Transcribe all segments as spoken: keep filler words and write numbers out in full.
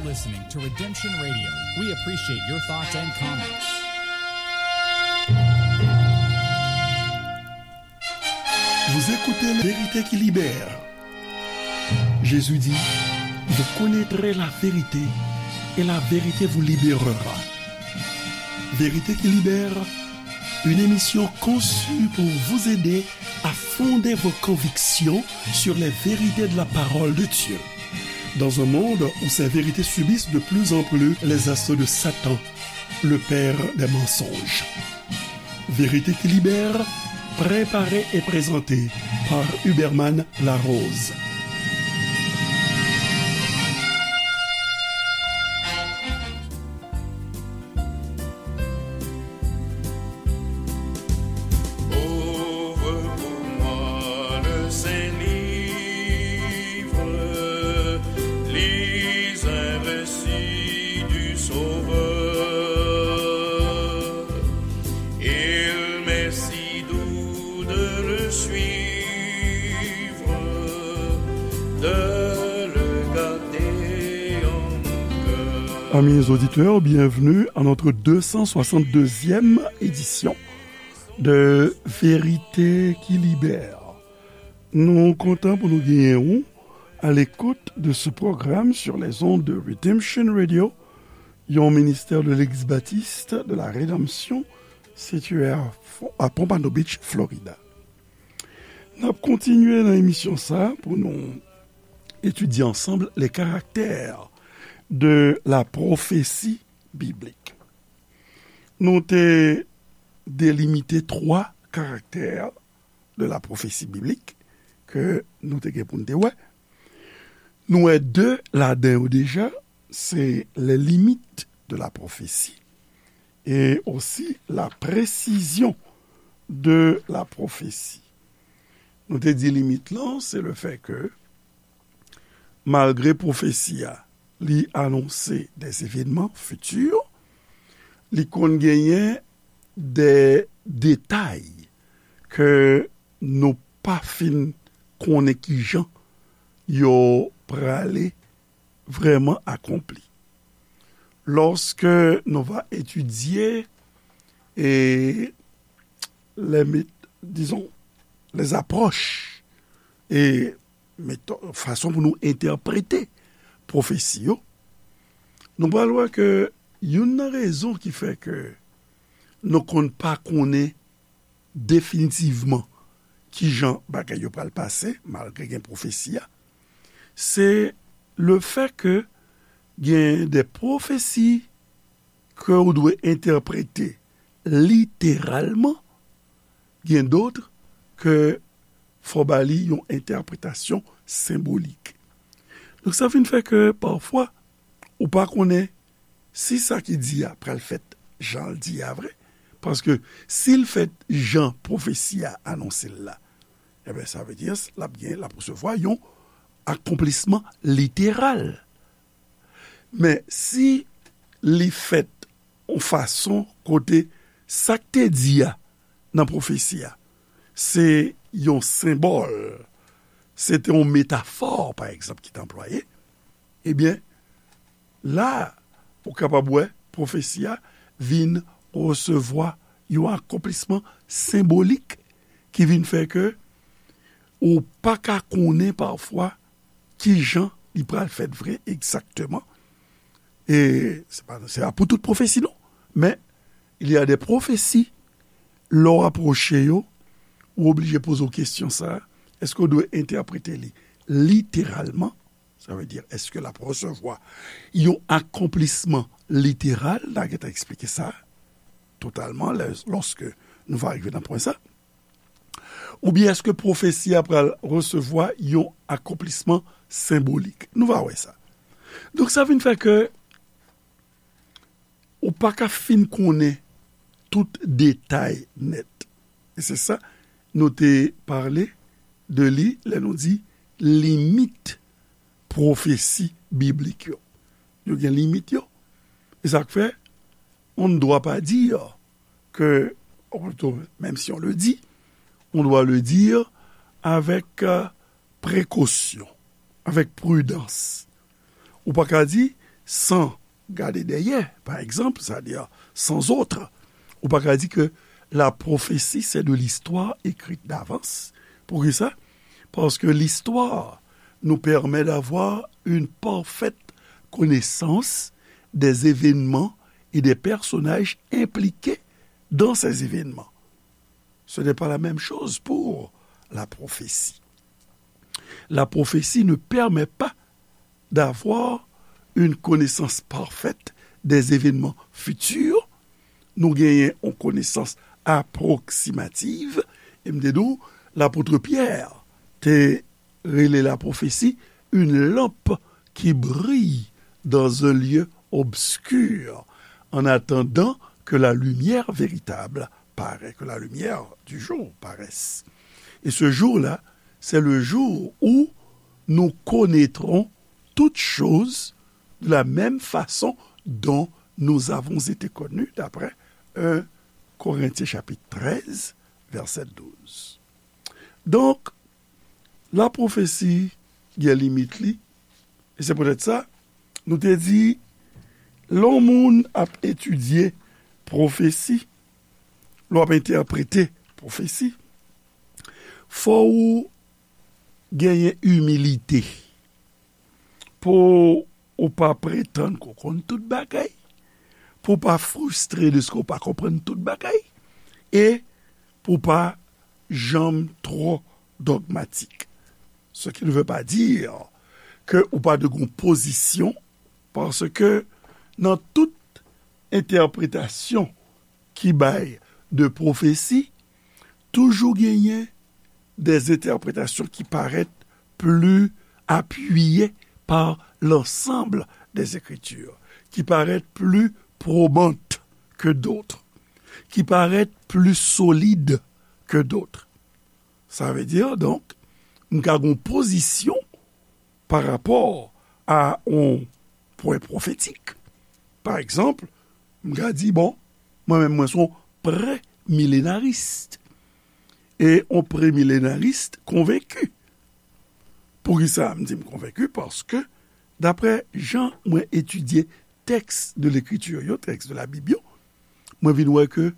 Listening to Redemption Radio. We appreciate your thoughts and comments. Vous écoutez La vérité qui libère. Jésus dit, vous connaîtrez la vérité et la vérité vous libérera. Vérité qui libère, une émission conçue pour vous aider à fonder vos convictions sur les vérités de la parole de Dieu. Dans un monde où ces vérités subissent de plus en plus les assauts de Satan, le père des mensonges. Vérité qui libère, préparée et présentée par Huberman Larose. Ouvre pour moi le Saint-Livre, lis un récit du Sauveur. Il m'est si doux de le suivre, de le garder en mon cœur. Amis auditeurs, bienvenue à notre deux cent soixante-deuxième édition de Vérité qui Libère. Nou kontan pou nou genyen ou à l'écoute de ce programme sur les ondes de Redemption Radio, yon ministè de Legliz Batis de la Redanmsyon, sitiye a, a Pompano Beach, Florida. N ap kontinye nan emisyon sa a pou nou etidye ansanm les caractères de la prophétie biblique. Nou te delimite twa karaktè de la prophétie biblique ke nou te gen pou n te wè. Nou wè de ladan yo deja, se les limites de la prophétie et aussi la précision de la prophétie. Nou te di limit lan, se le fait que, malgre pwofesi a, li anonse des événements futurs, li konn genyen de detay ke nou pa fin konnen kijan yo prale vrèman akonpli. Lòske nou va etidye e les mét-, disons, les approches e métò-, fason pou nou entèprete pwofesi yo, nou pral wè ke youn nan rezon ki fè ke nou konn pa konnen definitivman kijan bagay yo pral pase, malgre gen pwofesi a, se le fait que gen de pwofesi ke ou dwe entèprete literalman, gen dòt ke fò ba li yon entèpretasyon senbolik. Donk, sa vin fè ke pafwa, ou pa konnen si sa ki di a pral fèt jan l di a vre, paske si l fèt jan pwofesi a anonse l la, ebyen, sa vle di l ap gen, l ap resevwa yon akonplisman literal. Men si li fèt yon fason kote sa k te di a nan pwofesi a, se yon senbòl, se te yon metafò, pa egzanp, ki te anplwaye, ebyen, la, ou kapab wè pwofesi a vin resevwa yon akonplisman senbolik ki vin fè ke ou pa ka konnen pafwa kijan li pral fèt vre egzakteman. E se pa, se pa pou tout pwofesi, non. Men, il y a des prophéties, lè w apwoche yo, ou oblije poze w kesyon sa a, èske w dwe entèprete li literalman? Sa vle di, èske l ap resevwa yon akonplisman literal? N a gentan eksplike sa totalman lè, lòske nou va rive nan pwen sa. Oubyen èske pwofesi a pral resevwa yon akonplisman senbolik? Nou va wè sa. Donk, sa vin fè ke ou pa ka fin konnen tout detay nèt. E se sa, nou te pale de li lè nou di limit pwofesi biblik yo. Yo gen limit yo. E sa k fè, on ne doit pas dire que, ou plutôt, même si on le dit, on doit le dire avec, euh, précaution, avec prudence. Ou pa ka di, san gade dèyè, pa egzanp, c'est-à-dire sans autre. Ou pa ka di ke la prophétie, c'est de l'histoire écrite d'avance. Poukisa? Parce que l'histoire nous permet d'avoir une parfaite connaissance des événements et des personnages impliqués dans ces événements. Ce n'est pas la même chose pour la prophétie. La prophétie ne permet pas d'avoir une connaissance parfaite des événements futurs. Nou genyen yon konesans apwoksimativ. E m te di w, lapot Pyè te rele la prophétie une lampe qui brille dans un lieu obscur, en attendant que la lumière véritable paraît, que la lumière du jour paraisse. Et ce jour-là, c'est le jour où nous connaîtrons toutes choses de la même façon dont nous avons été connus, d'après un Corinthiens chapitre treize, verset douze. Donk, la pwofesi gen limit li, e se poutèt sa, nou te di, lè yon moun ap etidye pwofesi, lè w ap entèprete pwofesi, fò w genyen imilite pou ou pa pretann ke w konn tout bagay, pou w pa fristre dèske w pa konprann tout bagay, e pou w pa janm twò dogmatik. Ce qui ne veut pas dire ke ou pa dwe gen yon pozisyon, paske nan tout entèpretasyon ki bay de pwofesi, toujou genyen des interprétations qui paraissent plus appuyées par l'ensemble des Écritures, qui paraissent plus probantes que d'autres, qui paraissent plus solides que d'autres. Sa vle di, donk, m ka gen yon pozisyon pa rapò a yon pwen pwofetik. Pa egzanp, m ka di, bon, mwen menm, mwen se yon premilenaris. E yon premilenaris konvenki. Poukisa m di m konvenki? Paske, daprè jan mwen etidye tèks de lekriti yo, tèks de la Bib yo, mwen vin wè ke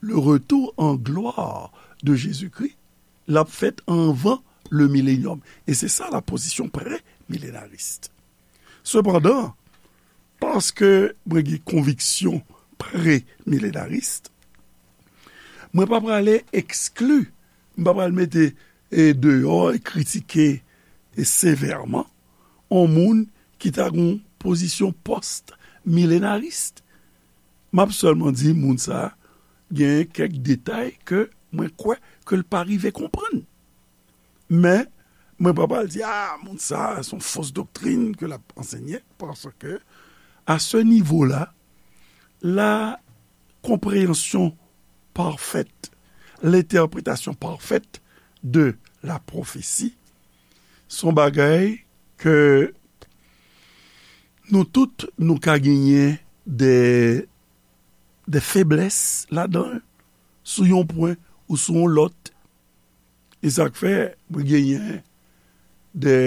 le retour en gloire de Jésus-Christ, l ap fèt anvan le milenyòm. E se sa la pozisyon premilenaris. Sepandan, paske mwen gen konviksyon premilenaris, mwen pa prale ekskli, m pa pral mete, e, deyò e kritike, e, sevèman yon moun ki ta gen yon pozisyon pòstmilenaris. M ap sèlman di moun sa a gen kèk detay ke mwen kwè ke l pa rive konprann. Men, mwen pa pral di, a, moun sa a, se yon fos doktrin ke l ap ansenye, paske, à ce niveau-là, la compréhension parfaite, l'interprétation parfaite de la prophétie, se yon bagay ke nou tout, nou ka genyen de, de feblès ladan l, sou yon pwen ou sou yon lòt. E sa k fè, mwen genyen de,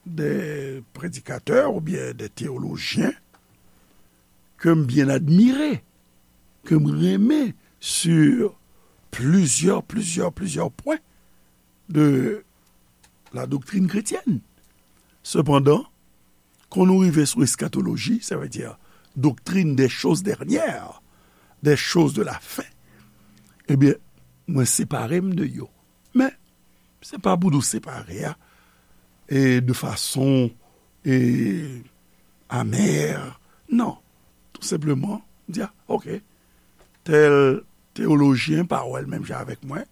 de predikatè oubyen de teyolojyen ke m byen admire, ke m renmen sur plizyè, plizyè, plizyè pwen de la doctrine chrétienne. Sepandan, kan nou rive sou eskatoloji, sa vle di doktrin des choses dernières, des choses de la fin, ebyen, mwen separe m de yo. Men, se pa pou nou separe a, e de fason, e, amè. Non. Tou senpleman, di, a, oke, tèl teyolojyen pa wè l menm jan avèk mwen.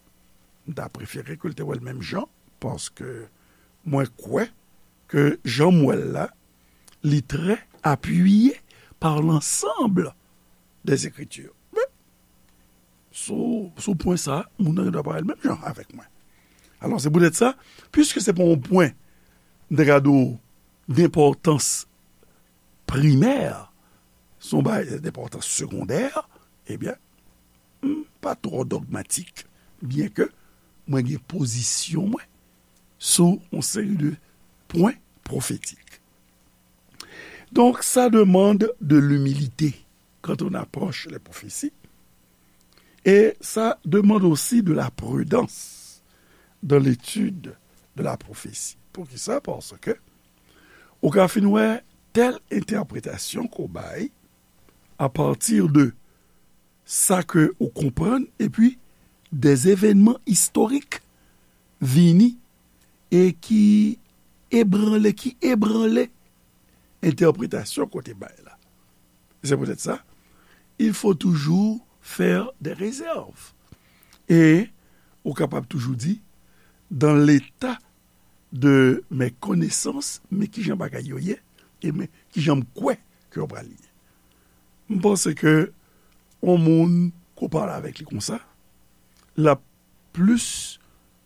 M ta prefere ke l te wè l menm jan, paske mwen kwè ke jan m wè l la, li trè apiye par l'ensemble des Écritures. Men, sou, sou pwen sa, moun nan gen dwa pa wè l menm jan avèk mwen. Alò, se poutèt sa, piske se pa yon pwen, m te ka di w, denpòtans primè, se yon bagay denpòtans segondè, ebyen, m pa twò dogmatik, byenke mwen gen pozisyon mwen sou yon seri de pwen pwofetik. Donc, ça demande de l'humilité quand on approche les prophéties, et ça demande aussi de la prudence dans l'étude de la prophétie. Poukisa? Paske ou ka fin wè tèl entèpretasyon ke w bay apati de sa ke ou konprann, epi de evènman istorik vini e ki ebranle, ki ebranle entèpretasyon ke w te bay la. Se poutèt sa, il faut toujours faire des réserves. E ou kapab toujou di, dans l'état de mes connaissances, men kijan bagay yo ye, e men kijan m kwè ke yo pral ye. M panse ke yon moun ke w pale avèk li konsa, l ap plis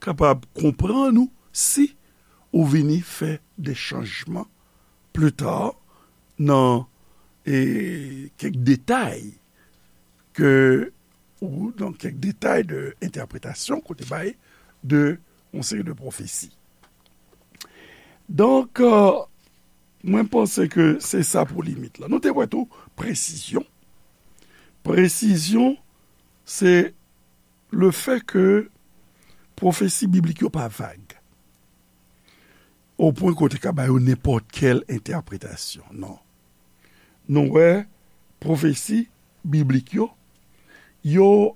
kapab konprann ou si ou vini fè de chanjman pli ta nan, e, kèk detay ke, ou nan kèk detay de entèpretasyon ke w te bay de yon seri de pwofesi. Donk, e, mwen panse ke se sa pou limit la. Nou te wè tou presizyon. Presizyon, se le fè ke pwofesi biblik yo pa vag, o pwen ke w te ka ba yo nenpòt kèl entèpretasyon. Non. Nou wè pwofesi biblik yo, yo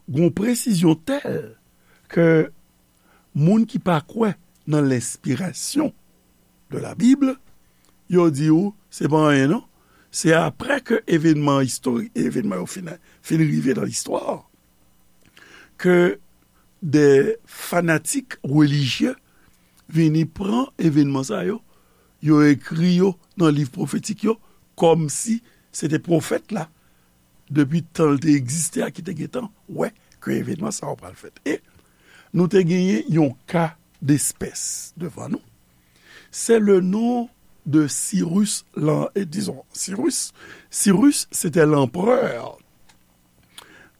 gon presizyon tèl ke moun ki pa kwè nan lenspirasyon de la Bible, yo di w, se pa anyen non. Se apre ke evènman istorik, evènman yo fin, fin rive nan listwa, ke de fanatik relijye vini pran evènman sa yo, yo ekri yo nan liv pwofetik yo, kòmsi se te pwofèt la, depi tan l te egziste a, ki te gentan wè ke evènman sa yo pral fèt. E nou te genyen yon ka despès devan nou. C'est le nom de Cyrus, lan-, e, dizon, Cyrus. Cyrus, c'était l'empereur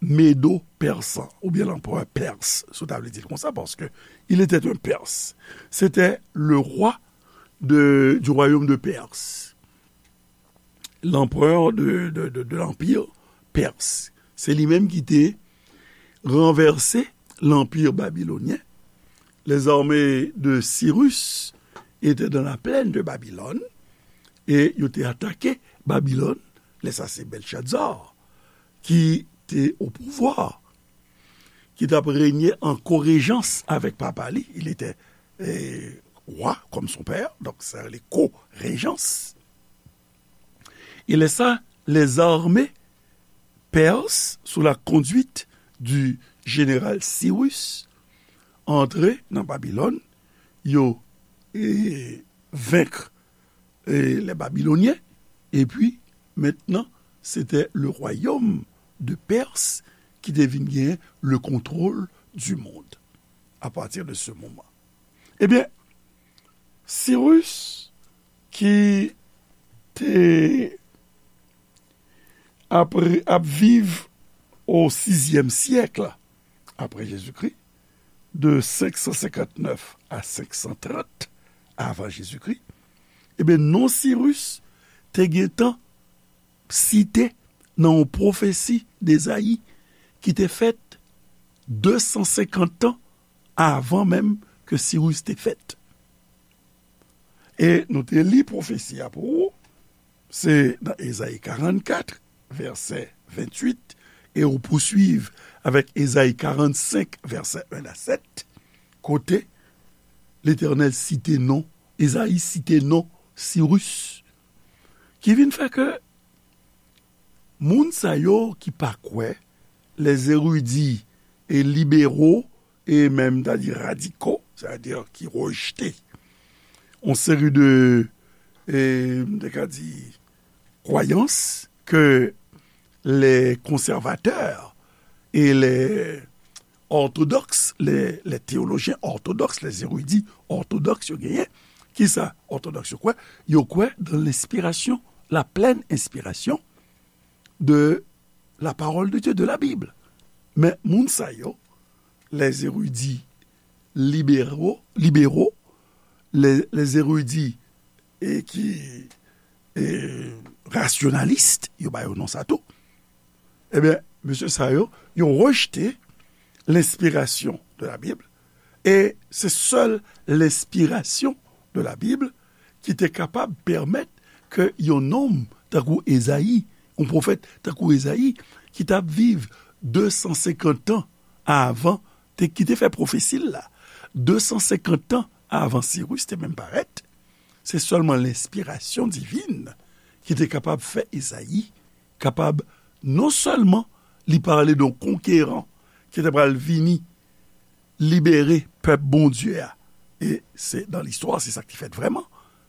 médo-persan, oubyen l'empereur perse, si w ta vle di l konsa, paske il était un Perse. C'était le roi de, du royaume de Perse. L'empereur de, de, de, de l'empire perse. Se li menm ki te ranvèse l'empire babylonien. Les armées de Cyrus étaient dans la plaine de Babylone, e yo te atake Babilòn. Lè sa se Belshazzar ki te o pouvwa, ki t ap renye an korejans avèk papa li. Il était, eh, roi comme son père, donc sa rele korejans. E lè sa, les armées perses, sous la conduite du général Cyrus, antre nan Babilòn, yo, e, venk, e, les Babyloniens, epi mentnan, c'était le royaume de Perse ki te vin gen le contrôle du monde à partir de ce moment. Ebyen, Cyrus, ki te apre, ap viv o sizyèm syèk apre Jezikri, de senk san senkannnèf a senk san trant avan Jezikri, ebyen, non Sirus te gentan site nan yon pwofesi d'Ezayi ki te fèt de san senkant tan avan menm ke Sirus te fèt. E nou te li pwofesi a pou ou, se nan Ezayi karannkat, vèsè venntuit, e ou pouswiv avèk Ezayi karannsenk, vèsè en a sèt, kote Letènèl site non, Ezayi site non Sirus, ki vin fè ke moun sa yo ki pa kwè, les érudits et libéraux, e menm, ta di radiko, sètadi ki rejte yon seri de, e, m te ka di, kwayans ke les conservateurs et les orthodoxes, les, les théologiens orthodoxes, les érudits orthodoxes, yo genyen. Kisa ortodòks yo kwè? Yo kwè dans l'inspiration, la pleine inspiration de la parole de Dieu, de la Bible. Men moun sa yo, les érudits libéraux, libéraux, les, les érudits, e ki e, rasyonalis, yo ba yo non sa tou. Ebyen, mesye sa yo, yo rejte lenspirasyon de la Bible, e se sèl lenspirasyon de la Bible ki te kapab pèmèt ke yon nonm tankou Ezayi, yon pwofèt tankou Ezayi, ki t ap viv de san senkant tan avan, te, ki te fè pwofesi l la, de san senkant tan avan Siris te menm parèt, se sèlman lenspirasyon divin ki te kapab fè Ezayi kapab, non sèlman li pale de yon konkeran ki te pral vini libere pèp Bondye a, e se, nan listwa, se sa ki fèt vrèman.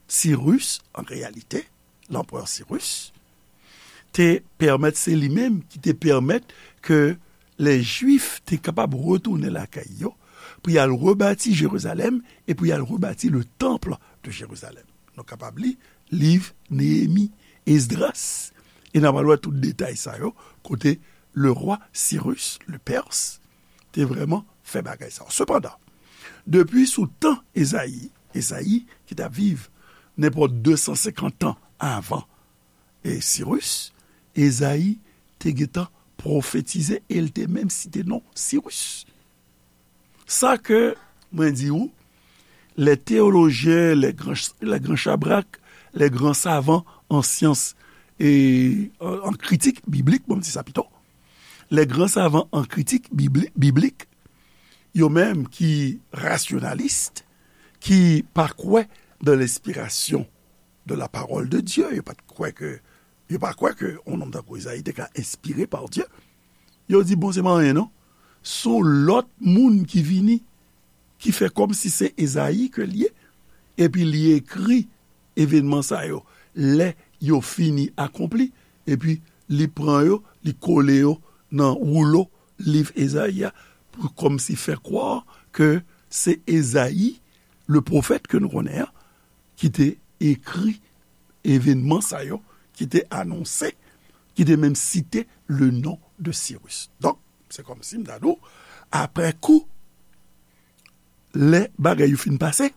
Siris, an reyalite, lanperè Siris, te pèmèt, se li menm ki te pèmèt ke lè Jwif te kapab retounen lakay yo, pou y al rebati Jerizalèm e pou y al rebati le temple de Jérusalem. Nou kapab li liv Neyemi, Esdras, e n a pral wè tout detay sa yo, kote le roi Cyrus, le Perse, te vrèman fè bagay sa yo. Sepandan, depi sou tan Ezayi, Ezayi ki t ap viv nenpòt de san senkant tan avan, e, Siris, Ezayi te gentan pwofetize e l te menm site non Siris. Sa ke mwen di ou, les théologiens, les grands, les grands chabrak, les grands savants en science e, euh, en critique biblique, bon, m di sa pito, les grands savants en critique bibli-, biblique, yo menm ki rasyonalis, ki pa kwè dans l'inspiration de la parole de Dieu, yo pa t kwè ke, yo pa kwè ke yon nonm tankou Ezayi te ka enspire pa Dye. Yo di, bon, se pa anyen non. Se yon lòt moun ki vini, ki fè kòmsi se Ezayi ke l ye, epi li ekri evènman sa yo. Lè yo fini akonpli, epi li pran yo, li kole yo nan woulo liv Ezayi a, pou kòmsi fè kwè ke se Ezayi, le pwofèt ke nou konnen an, ki te ekri evènman sa yo, ki te anonse, ki te menm site le non de Siris. Donk, se kòmsi m ta di w, aprè kou, lè bagay yo fin pase,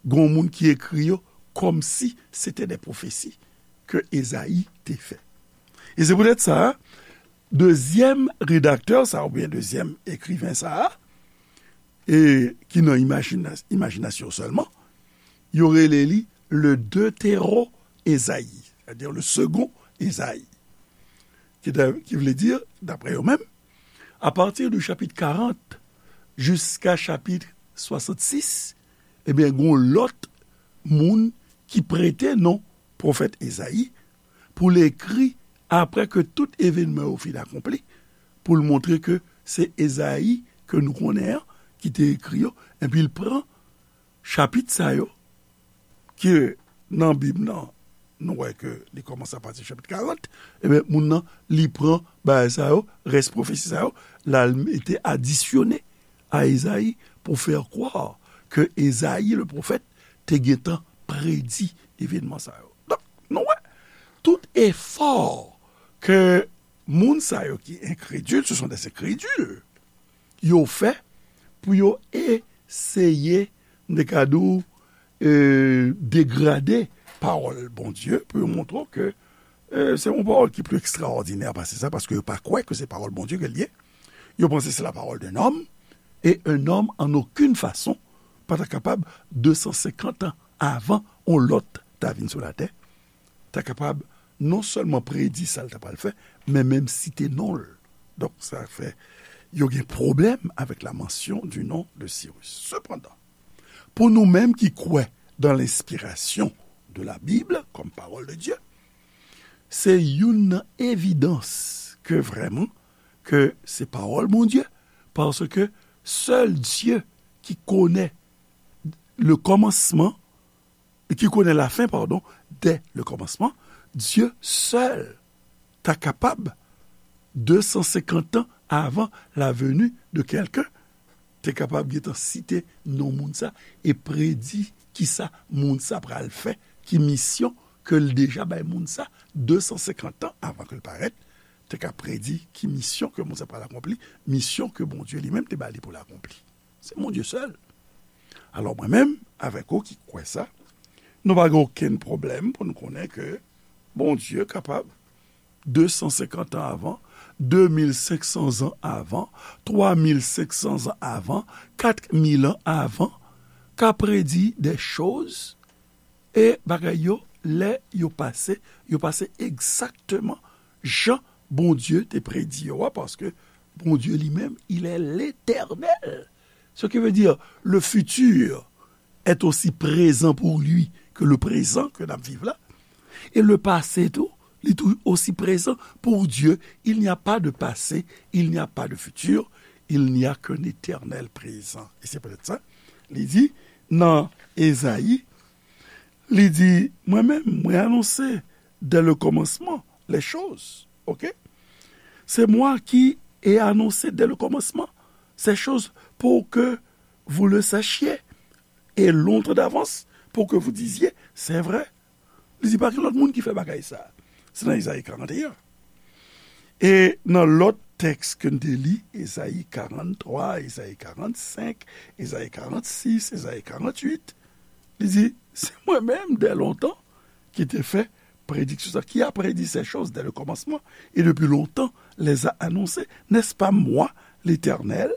gen yon moun ki ekri yo kòmsi se te de pwofesi ke Ezayi te fè. E se poutèt sa, dezyèm redaktè sa, oubyen dezyèm ekriven sa, e ki nan imajina-, imajinasyon sèlman, yo rele li le Deutéro-Esaïe, c'est-à-dire le second Esaïe. Ki ta-, ki vle di, daprè yo menm, apati de chapit karant jiska chapit swasannsis, ebyen, gen yon lòt moun ki prete non pwofèt Ezayi pou l ekri, aprè ke tout evènman yo fin akonpli, pou l montre ke se Ezayi ke nou konnen an ki te ekri yo, epi l pran chapit sa yo, ke nan Bib nan, nou wè ke li kòmanse apati chapit karant, ebyen, moun nan, li pran bagay sa yo, rès pwofesi sa yo, l al mete, adisyone a Ezayi pou fè kwè ke Ezayi, le pwofèt, te gentan predi evènman sa yo. Donk, nou wè, tout efò ke moun sa yo ki enkredil, ce sont des incrédules, yo fè pou yo eseye, m te ka di w, e, degrade pawòl Bondye, pou yo montre w ke, e, se yon pawòl ki pli ekstraòdinè pase sa, paske yo pa kwè ke se pawòl Bondye ke l ye. Yo panse se la parole d'un homme, et un homme, en aucune façon, pa ta kapab, de san senkant an avan yon lòt ta vin sou latè, ta kapab non sèlman predi sa l ta pral fè, men menm site non l. Donk, sa fè yo gen pwoblèm avèk la mention du nom de Cyrus. Sepandan, pou nou menm ki kwè dans l'inspiration de la Bible comme parole de Dieu, se youn nan evidans ke vrèman, ke se pawòl Bondye, paske sèl Dye ki konnen le commencement, ki konnen lafen, padon, dès le commencement, Dye sèl ta kapab, de san senkant an avan la venue de quelqu'un, te kapab gentan site non moun sa e predi kisa moun sa pral fè, ki misyon ke l deja bay moun sa, de san senkant an avan ke l parèt, te ka predi ki misyon ke moun sa pral akonpli, misyon ke Bondye li menm te ba li pou l akonpli. Se Bondye sèl. Alò, mwen menm, avèk ou ki kwè sa, nou pa gen okenn pwoblèm pou nou konnen ke Bondye kapab de san senkant an avan, de mil senk san zan avan, twa mil senk san zan avan, kat mil an avan, ka predi de choz, e bagay yo, lè yo pase, yo pase egzakteman jan Bondye te predi yo a, paske Bondye li menm, il est l'éternel. Ce qui veut dire, le futur est aussi présent pour lui que le présent que n ap viv la. Et le passé tou, li tou aussi présent pour Dieu. Il n'y a pas de passé, il n'y a pas de futur, il n'y a qu'un éternel présent. Et c'est peut-être ça, li di nan Ezayi, li di, mwen menm, mwen anonse dès le commencement les choses. Ok? C'est moi qui ai annoncé dès le commencement ces choses pour que vous le sachiez, et longtemps d'avance pour que vous disiez, c'est vrai. Li di pa gen lòt moun ki fè bagay sa. Se nan Ezayi karant e en. E nan lòt tèks ke n te li, Ezayi karant twa, Ezayi karant senk, Ezayi karant sis, Ezayi karant uit, li di, se mwen menm dè lontan ki te fè prédiction, qui a prédit ces choses dès le commencement, et depuis longtemps les a annoncées. N'est-ce pas moi, l'Éternel?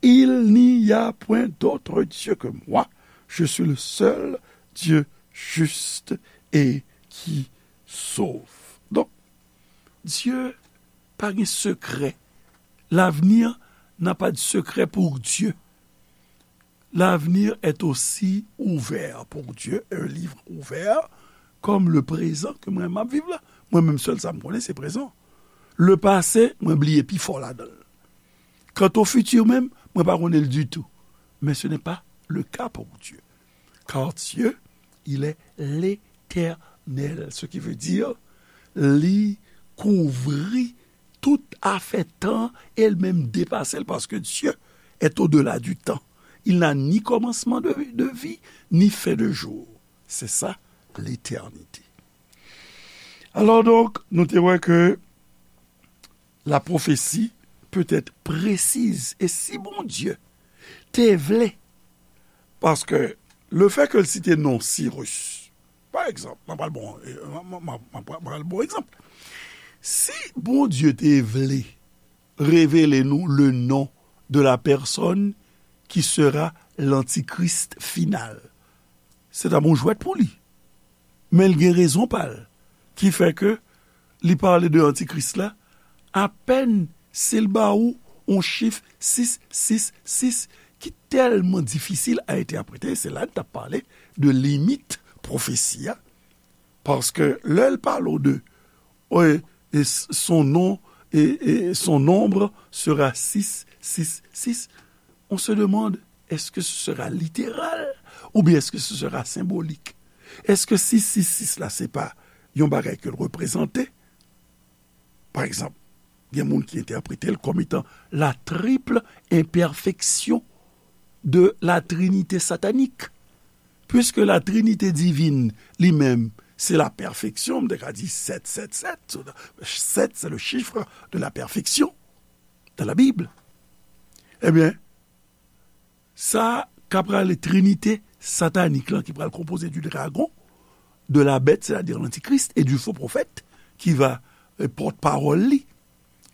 Il n'y a point d'autre Dieu que moi. Je suis le seul Dieu juste et qui sauve. Donk, Dye pa gen sekrè. L'avenir n'a pas de secret pour Dieu. L'avenir est aussi ouvert pour Dieu, un livre ouvert, comme le présent ke mwen m ap viv la. Mwen menm sèl sa m konnen se prezan. Le passé, mwen bliye pi fò ladan l. Quant au futur menm, mwen pa konnen l ditou. Mais ce n'est pas le cas pour Dieu. Car Dieu, il est l'éternel, ce qui veut dire li kouvri tout afè tan e l menm depase l, paske Dye est au-delà du temps. Il n'a ni commencement de, de vie, ni fin de jour. C'est ça, l'éternité. Alors donc, nou te wè ke la prophétie peut être précise. E si Bondye te vle, paske le fait ke l site non Sirus, pa egzanp, mwen pral bon, mwen, mwen, mwen, mwen pral bon egzanp. Si Bondye te vle revele nou le nom de la personne qui sera l'antichrist final, se ta bon jwèt pou li. Men l gen rezon pa l ki fè ke li pale de antikris la, apèn si l ba ou yon chif sis sis sis ki tèlman difisil a entèprete, se la n t ap pale de limit pwofesi a, paske lè l pale w de, e, e s-, son nom, e, e son nombre sera sis sis sis, on se demande, est-ce que ce sera littéral ou bien est-ce que ce sera symbolique? Èske sis sis sis la se pa yon bagay ke l reprezante? Pa egzanp, gen moun ki entèprete l kòm etan la triple imperfection de la trinité satanique. Puisque la trinité divine li menm, se la perfection, m te ka di sèt sèt sèt, sèt, c'est le chiffre de la perfection dans la Bible. Ebyen, sa k ap rele trinite satanik lan ki pral konpoze du dragon, de la bête, c'est-à-dire l'antichrist, et du faux prophète, ki va, euh, pòtpawòl li.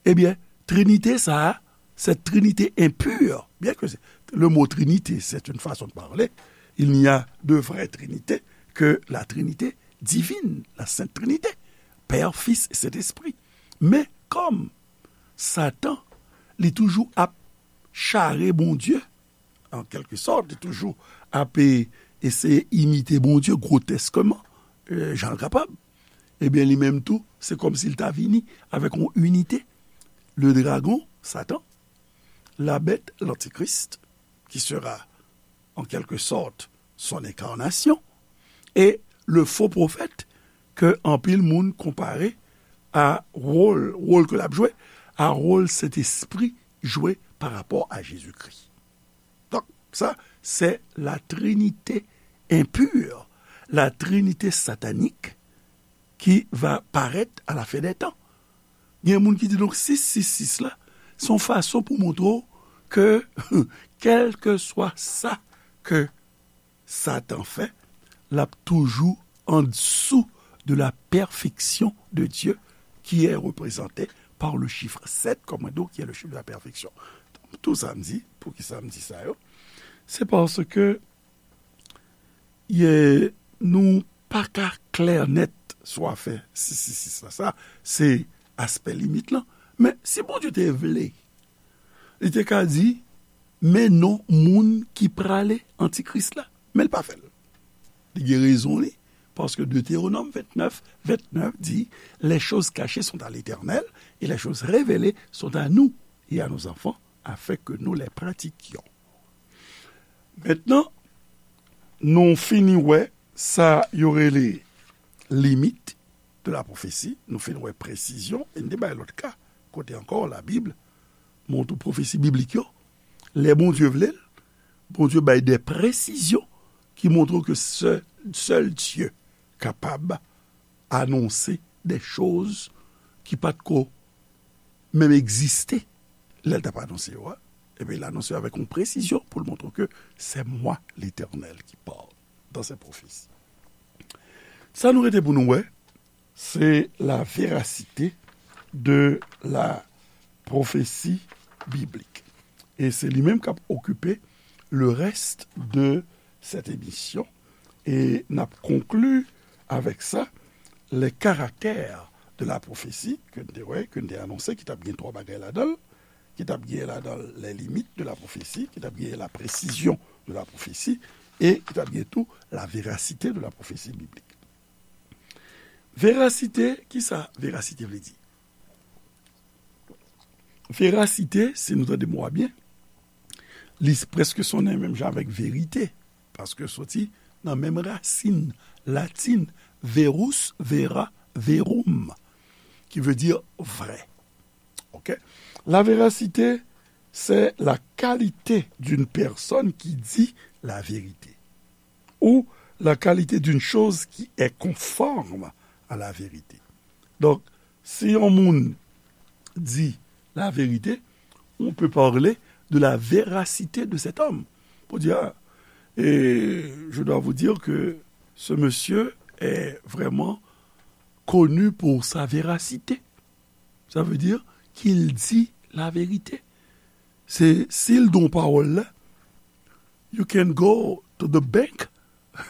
Ebyen, trinite sa a, cette trinité impure, bien que c'est, le mot trinité, c'est une façon de parler, il n'y a de vraie trinité que la trinité divine, la sainte trinité, Père, Fils et Saint-Esprit. Men kòm Satan, li toujou ap chare Bondye, an kèlke sòt, li toujou ap, e, eseye imite Bondye gwotèskman, e, jan l kapab. Ebyen, li menm tou, se kòmsi l ta vini avèk yon inite. Le dragon, Satan, la bête, l'antichrist, qui sera, en quelque sorte, son incarnation, et le faux prophète, ke anpil moun konpare a wòl, wòl ke l ap jwe, a wòl Sentespri jwe pa rapò a Jezikri. Donk, sa, se la trinite enpir, la trinite satanik ki va parèt a la fen dè tan. Gen moun ki di, donk, sis sis sis la, se yon fason pou montre w ke, kèlkeswa sa ke Satan fè, l ap toujou andesou de la perfection de Dieu, qui est représenté par le chiffre sept, comme on dit, qui est le chiffre de la perfection. Tout sa m di, poukisa m di sa yo? Se paske ye, nou pa ka klè nèt sou afè sis sis sis la. Sa, se aspè limit lan. Men si Bondye te vle, li te ka di, men non moun ki prale antikris la. Men l pa fè l. Li gen rezon li, paske Deutéronome vingt-neuf, vingt-neuf di, les choses cachées sont à l'Éternel et les choses révélées sont à nous et à nos enfants, afin que nous les pratiquions. Mentnan, nou fini wè sa yo rele limit de la pwofesi, nou fin wè presizyon, e n te bay lòt ka, kote ankò Labib montre pwofesi biblik yo, lè Bondye vle l, Bondye bay de presizyon ki montre ke sè-, sèl Dye kapab anonse de choz ki pa t ko menm egziste lè l t ap anonse yo a. Ebyen, l anonse yo avèk yon presizyon pou l montre ke c'est moi, l'Éternel, qui parle dans ces prophéties. Sa nou rete pou nou wè, se la véracité de la prophétie biblique. E se li menm k ap okipe le reste de cette émission. E n ap konkli avèk sa, les caractères de la prophétie, ke n te wè, ke n te anonse, ki t ap gen twa bagay ladan l, ki t ap gen ladan l les limites de la prophétie, ki t ap gen la précision de la prophétie, e ki t ap gen tou la véracité de la prophétie biblique. Verasite, kisa verasite vle di? Verasite, si nou tande mo a byen, li prèske sonnen menm jan avèk verite, paske soti nan menm rasin latin, verus, vera, verum, ki vle di vrè. Ok? La véracité, c'est la qualité d'une personne qui dit la vérité, ou la qualité d'une chose qui est conforme à la vérité. Donk, si yon moun di la vérité, on peut parler de la véracité de cet homme. Pour dire, ah, et je dois vous dire que ce monsieur est vraiment connu pour sa véracité. Ça veut dire qu'il dit la vérité. Se, si l di yon pawòl la, you can go to the bank.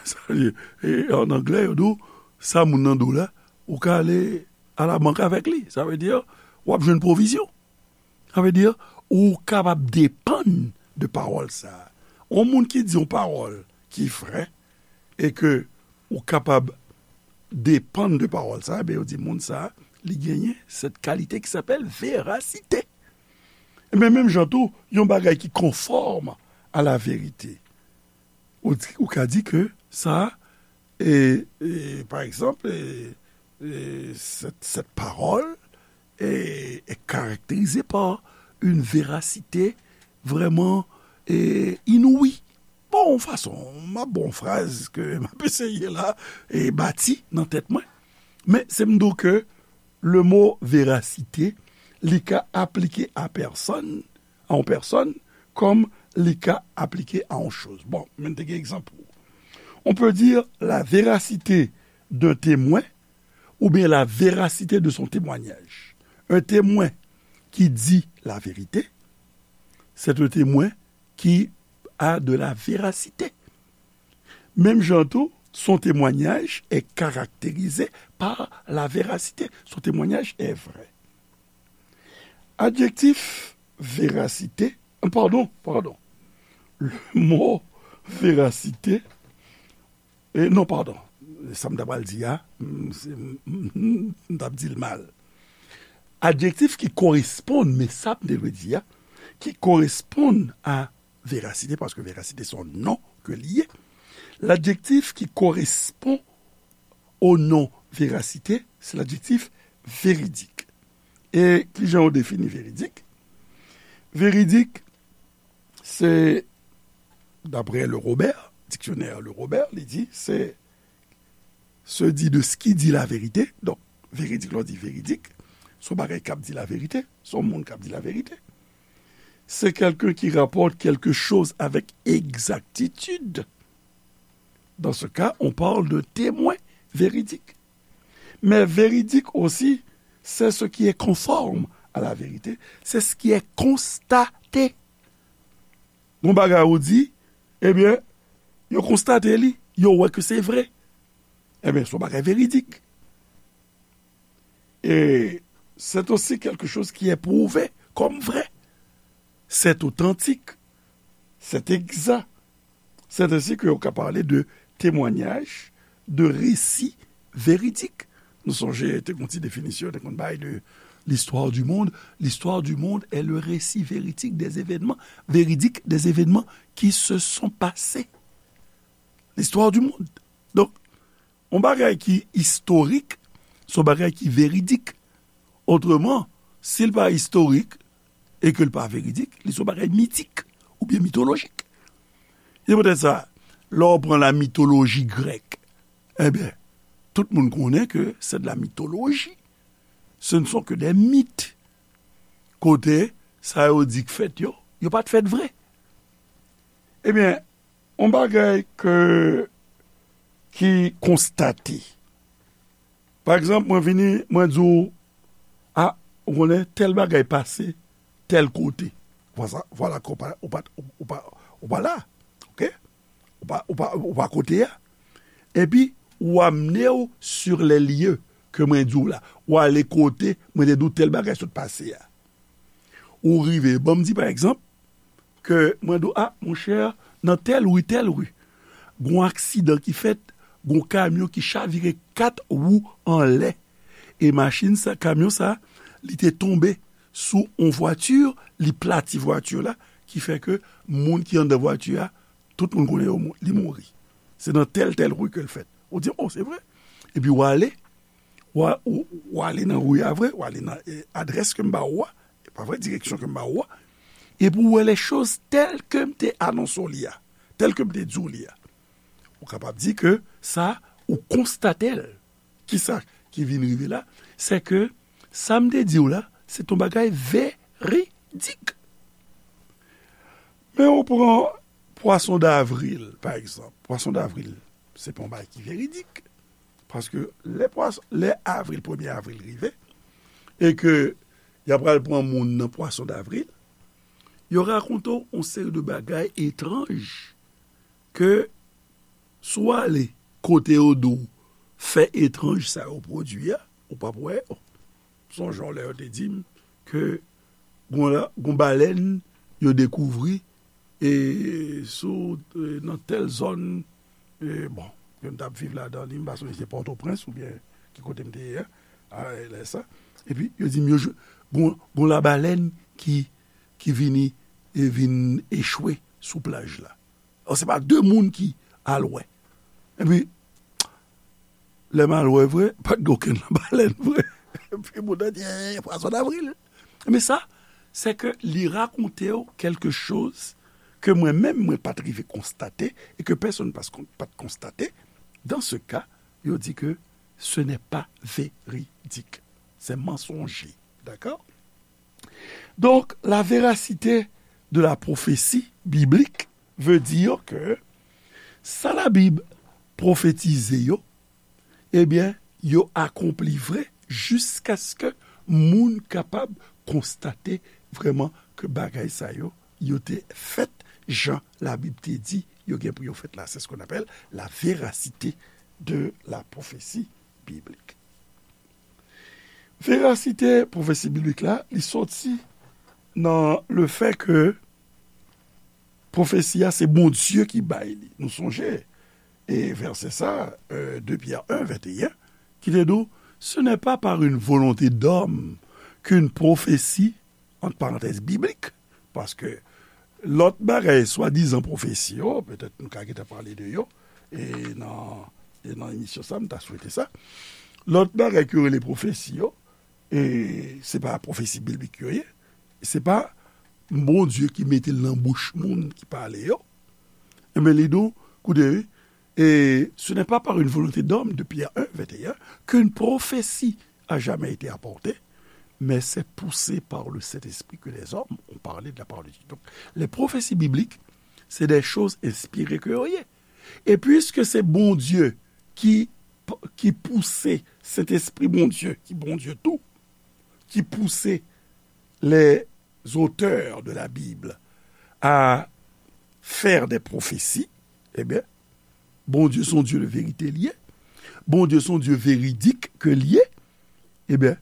Sa vle di, e, an anglè, yo di w, sa moun nan di w la, ou ka ale a la bank avèk li. Sa vle di, w ap jwenn pwovizyon. Sa vle di, ou kapab depann de pawòl sa a. Yon moun ki di yon pawòl ki vrè, e ke ou kapab depann de pawòl sa a, ben, yo di moun sa a, li genyen cette qualité qui s'appelle véracité. Ebyen, menm jan tou, yon bagay ki konfòm a la verite. Ou di, ou ka di ke sa, e, e, pa egzanp, e, e, cette, cette parole est, est caractérisée par une véracité vraiment, e, inouïe. Bon, yon fason, m ap ba w yon fraz ke m ap eseye la, e, bati nan tèt mwen. Men se m di w ke le mo verasite, li ka aplike a pèsòn, a yon pèsòn, kòm li ka aplike a yon choz. Bon, men n te gen egzanp pou ou. On peut dire la véracité d'un témoin ou bien la véracité de son témoignage. Un témoin qui dit la vérité, c'est un témoin qui a de la véracité. Menm jan tou, son témoignage est caractérisé par la véracité. Son témoignage est vrai. Adjektif véracité, pardon, pardon. Le mot véracité, e non, pardon, sa m ta pral di a, m, se, m, m, m t ap di l mal. Adjektif ki koresponn, men sa m te dwe di a, ki koresponn a verasite, paske verasite se yon non ke li ye. Ladjektif ki koresponn o non verasite, se ladjektif veridik. E kijan yo defini veridik? Veridik, se, daprè Le Robert, diksyonè Le Robert, li di, se se di de ce qui dit la vérité. Donk, veridik, lè w di veridik, se yon bagay k ap di laverite, se yon moun k ap di laverite. C'est quelqu'un qui rapporte quelque chose avec exactitude. Dans ce cas, on parle d'un témoin véridique. Mais véridique aussi, c'est ce qui est conforme à la vérité, c'est ce qui est constaté. Yon bagay ou di, ebyen, yo konstate li, yo wè ke se vre. Ebyen, se yon bagay veridik. Et c'est aussi quelque chose qui est prouvé comme vrai. C'est authentique. C'est exact. C'est ainsi que yo ka pale de témoignage, de récit véridique. Nou sonje, te gon ti definisyon, te konn bay de l'histoire du monde. L'histoire du monde est le récit véridique des événements, véridique des événements qui se sont passés. L'histoire du monde. Donk, yon bagay ki istorik, se yon bagay ki veridik. Otreman, si l pa istorik, e ke l pa veridik, li se yon bagay mitik oubyen mitolojik. Se poutèt sa, lè w pran la mitoloji grèk, ebyen, tout moun konnen ke c'est de la mythologie. Ce ne sont que des mythes. Kote sa yo di k fèt yo, yo pa t fèt vre. Ebyen, yon bagay ke, ki konstate. Pa egzanp, mwen vini, mwen di w, a, ou konnen, tèl bagay pase tèl kote. Vwala, vwala ke ou pa, ou pa, ou pa, ou pa la. Oke? Ou pa, ou pa, ou pa kote a. Epi, ou amene w sur les lieux ke mwen di w la. Ou ale kote mwen te di w tèl bagay sot pase a. Ou rive, ban m di pa egzanp, ke mwen di w, a, monchè, nan tèl ri, tèl ri, gon aksidan ki fèt, gon kamyon ki chavire kat wou anlè. E machin sa, kamyon sa, li te tonbe sou yon vwati, li plati vwati la, ki fè ke moun ki anndan vwati a, tout moun konnen yo mou-, li mouri. Se nan tèl, tèl ri ke l fèt. Ou di, o, se vre. Epi w ale, w a, w, w ale nan ri a vre, w ale nan, e, adrès ke m ba ou a, e pa vre, direksyon ke m ba ou a, epi w wè les choses telles que m te anonse w li a, tèl ke m te di w li a. Ou kapab di ke sa, ou konstate l. Kisa ki vin rive la? Se ke sa m te di w la, se t on bagay veridik. Men ou pran pwason davril, pa egzanp. Pwason davril, se pa yon bagay ki veridik. Paske lè pwas-, lè avril, premye avril rive, e ke y ap pral pran moun nan pwason davril, yo rakonte w yon seri de bagay etranj ke si w ale kote yo di w fè etranj sa yo pwodui a, ou p ap wè yo. Sonje w lè yo te di m ke gon la, gon balèn yo dekouvri, e sou, e nan tèl zòn, e bon, ke m t ap viv ladan li, m pa sonje se Pòtoprens oubyen ki kote m te ye a, a, lè sa. Epi, yo di m yo jwe, gon, gon labalèn ki, ki vini, e vin echwe sou plaj la. Alò, se pa de moun ki al wè. Epi, lè m al wè vre, pa t gen okenn labalèn vre. Epi, moun nan di, eh, pwason davril. Men sa, se ke li rakonte w quelque chose ke mwen menm, mwen pa t rive konstate e ke pèsonn pa t kon-, pa t konstate. Dans ce cas, yo di ke ce n'est pas véridique. C'est mensonger. D'accord? Donc, la véracité de la prophétie biblique veut dire que sa Labib pwofetize yo, ebyen, yo akonpli vre jiskaske moun kapab konstate vrèman ke bagay sa yo, yo te fèt jan Labib te di yo gen pou yo fèt la. C'est ce qu'on appelle la véracité de la prophétie biblique. Verasite pwofesi biblik la, li soti nan le fait que pwofesi a, se Bondye ki bay li. Nou sonje, e vèsè sa, euh, deux Pierre un, vingt et un, ki te di w, ce n'est pas par une volonté d'homme qu'une prophétie, entre parenthèses, biblique, paske lòt bagay, swadizan pwofesi yo, petèt nou ka gentan pale de yo, e nan, e nan emisyon sa, m ta swete sa. Lòt bagay ke yo rele pwofesi yo, e se pa pwofesi biblik yo ye, se pa Bondye ki mete l nan bouch moun ki pale yo. Enben, li di w, koute, wi, et ce n'est pas par une volonté d'homme, de Pierre un, vingt et un, qu'une prophétie a jamais été apportée, mais c'est poussé par le Saint-Esprit que les hommes ont parlé de la parole de Dieu. Donc, les prophéties bibliques, c'est des choses inspirées ke yo ye. E piske se Bondye ki p-, ki pouse Sentespri Bondye, ki Bondye tou, ki pouse les auteurs de la Bible à faire des prophéties, ebyen, Bondye se yon Dye de verite li ye. Bondye se yon Dye veridik ke li ye. Ebyen,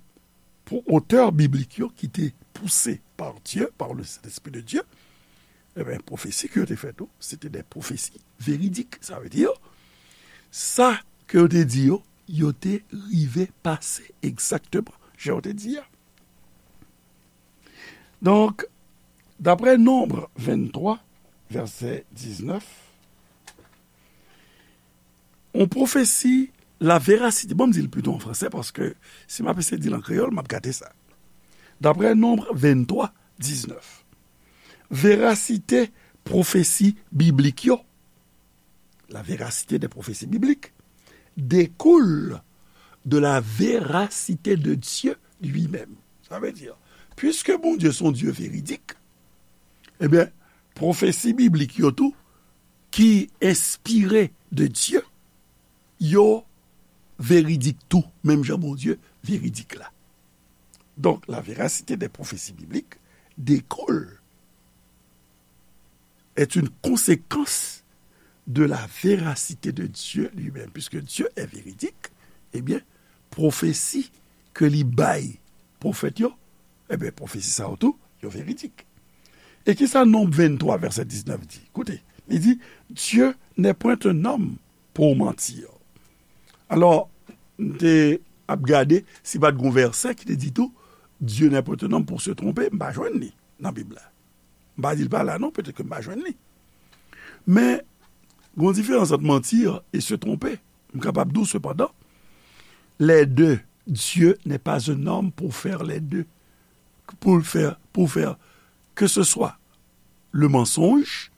pou otè biblik yo ki te pouse par Dieu, par le Saint-Esprit de Dieu, ebyen, pwofesi ke yo te fè tou, se te de pwofesi veridik. Sa vle di, sa ke yo te di yo, yo te rive pase egzakteman jan yo te di a. Donk, daprè Nonb venntwa, vèsè diznèf, yon pwofesi, la verasite, bon, m di l pito an fransè, paske si m ap eseye di l an kreyòl, m ap gate sa. Daprè Nonb venntwa, diznèf, verasite pwofesi biblik yo, la véracité des prophéties bibliques découle de la véracité de Dieu lui-même. Sa vle di, piske Bondye se yon Dye veridik, ebyen, pwofesi biblik yo tou, ki enspire de Dieu, yo veridik tou, menm jan Bondye veridik la. Donc, la véracité des prophéties bibliques découle, est une conséquence de la véracité de Dieu lui-même. Puisque Dieu est véridique, ebyen, pwofesi ke li bay pwofèt yo, ebyen, pwofesi sa yo tou, yo veridik. E kisa Nonb venntwa, vèsè diznèf di? Koute, li di, Dieu n'est point un homme pour mentir. Alò, m te ap gade si pa t gon vèsè ki te di tou, Dieu n'est point un homme pour se tromper, m pa jwenn li nan Bib la. M pa di l pa la non, petèt ke m pa jwenn li. Men, gon diferans ant mentir e se tromper. M kapab di w, sepandan, les deux, Dieu n'est pas un homme pour faire les deux. Pour faire, pour faire que ce soit le mensonge,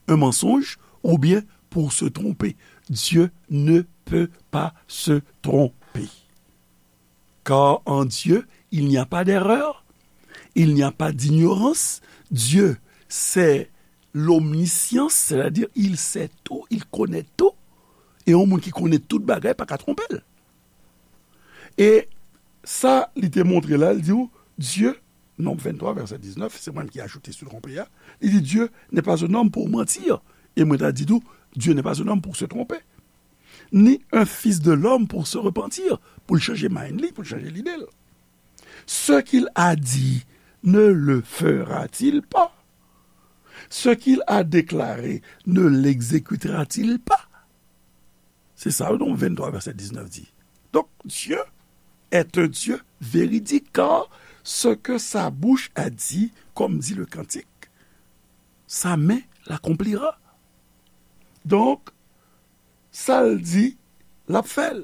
un mensonge, ou bien pour se tromper. Dieu ne peut pas se tromper. Car en Dieu, il n'y a pas d'erreur, il n'y a pas d'ignorance. Dieu, c'est l'omniscience, c'est-à-dire il sait tout, il connaît tout. E yon moun ki konnen tout bagay pa ka twonpe l. E sa li te montre la, li di w, Dieu, Nonb venntwa, vèsè diznèf, se mwen ki ajoute se trompe a, li di, Dieu n'est pas un homme pour mentir. E mwen ta di tou, Dieu n'est pas un homme pour se tromper. Ni un fils de l'homme pour se repentir, pou l chanje mind li, pou l chanje lide l. Ce qu'il a dit, ne le fera-t-il pas? Ce qu'il a déclaré, ne l'exécutera-t-il pas? Se sa, Nonb venntwa, vèsè diznèf di. Donc, Dieu est un Dieu véridique, car ce que sa bouche a dit, comme dit le cantique, sa main l'accomplira. Donk, sa l di, l ap fè l.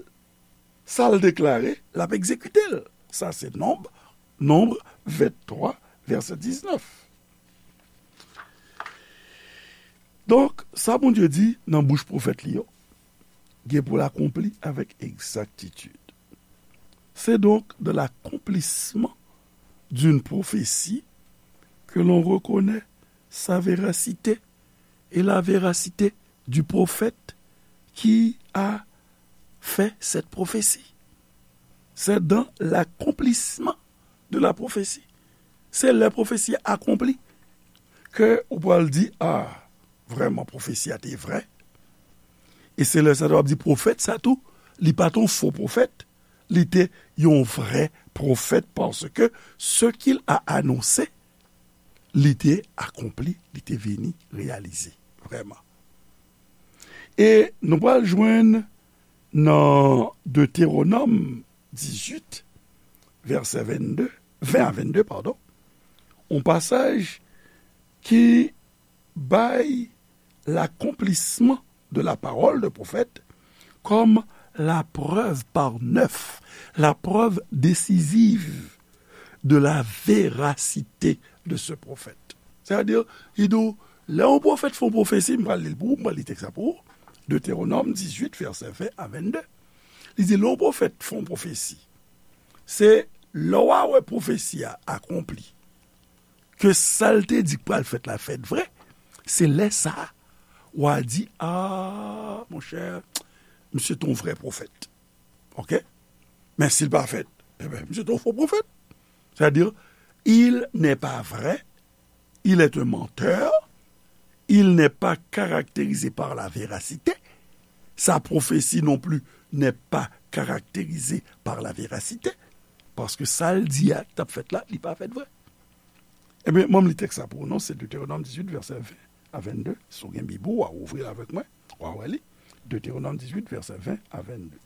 Sa l deklare, l ap egzekite l. Sa se Nonb, Nonb venntwa, vèsè diznèf. Donk, sa Bondye di nan bouch pwofèt li yo, gen pou l akonpli avèk egzaktitid. C'est donc de l'accomplissement d'une prophétie que l'on reconnaît sa véracité et la véracité du prophète qui a fait cette prophétie. C'est dans l'accomplissement de la prophétie. Se lè pwofesi a akonpli ke ou pral di, a, vrèman, pwofesi a te vrè. E se lè sa a w ap di pwofèt sa tou, li pa t yon fo pwofèt, li te yon vrè pwofèt, paske ce qu'il a annoncé, li te akonpli, li te vini reyalize, vrèman. E nou pral jwenn nan Detewonòm dizuit, vèsè vennde, ven a vennde, padon, yon pasaj ki bay l'accomplissement de la parole de prophète comme la preuve par neuf, la preuve décisive de la véracité de ce prophète. Sètadi, li di w, lè yon pwofèt fè yon pwofesi, m pral li l pou ou, m pral li tèks la pou ou. Detewonòm dizuit, vèsè ven a vennde. Li di, lè yon pwofèt fè yon pwofesi, se lè w a wè pwofesi a akonpli, ke sa l te di k pral fèt la fèt vre, se lè sa a, w a di, a, monchè, misye te yon vrè pwofèt. Ok? Men si l pa fèt, ebyen, misye te yon fo pwofèt. Sètadi, il n'est pas vrai, il est un menteur, il n'est pas caractérisé par la véracité, sa pwofesi non pli n'est pas caractérisé par la véracité, paske sa l di a ki t ap fèt la, li pa fèt vre. Ebyen, mwen m li tèks la pou ou non, se Deutéronome dix-huit, vèsè ven a vennde. Si w gen Bib ou, w a ouvri l avèk mwen, w a wè li. Deutéronome dix-huit, vèsè ven a vennde.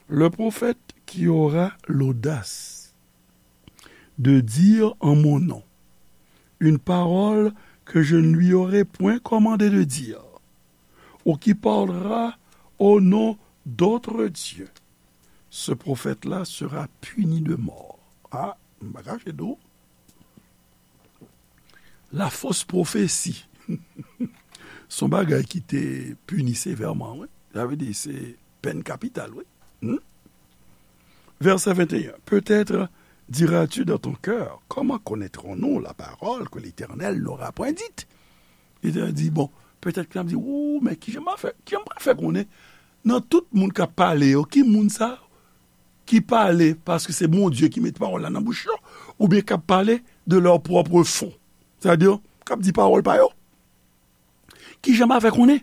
Le prophète qui aura l'audace de dire en mon nom une parole que je ne lui aurai point commandé de dire, ou qui parlera au nom d'autres dieux, ce prophète-là sera puni de mort. Ah, m pa kache di w, la fausse prophétie. Se yon bagay ki te pini sevèman, wi. Sa vle di, se pèn kapital, wi. Hmm? Verset vingt et un. Peut-être diras-tu dans ton cœur, comment connaîtrons-nous la parole que l'Éternel n'aura point dite? Letènèl di, bon, petèt ke n ap di, ou, men kijan m a fè, kijan m pral fè konnen nan tout moun k ap pale yo, ki moun sa ki pale paske se Bondye ki met pawòl la nan bouch yo, oubyen k ap pale de leur propre fon, sètadi, k ap di pawòl pa yo? Kijan m a fè konnen?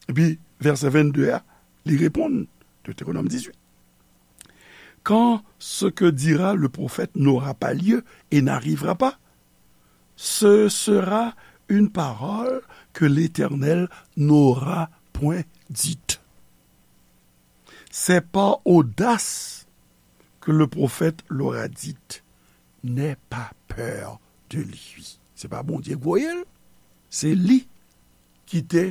Epi, vèsè vennde a, li reponn, Deutéronome dix-huit. Quand ce que dira le prophète n'aura pas lieu et n'arrivera pas, ce sera une parole que l'Éternel n'aura point dite. C'est par audace que le prophète l'aura dite. N'aie pas peur de lui. Se pa Bondye k voye l, se li ki te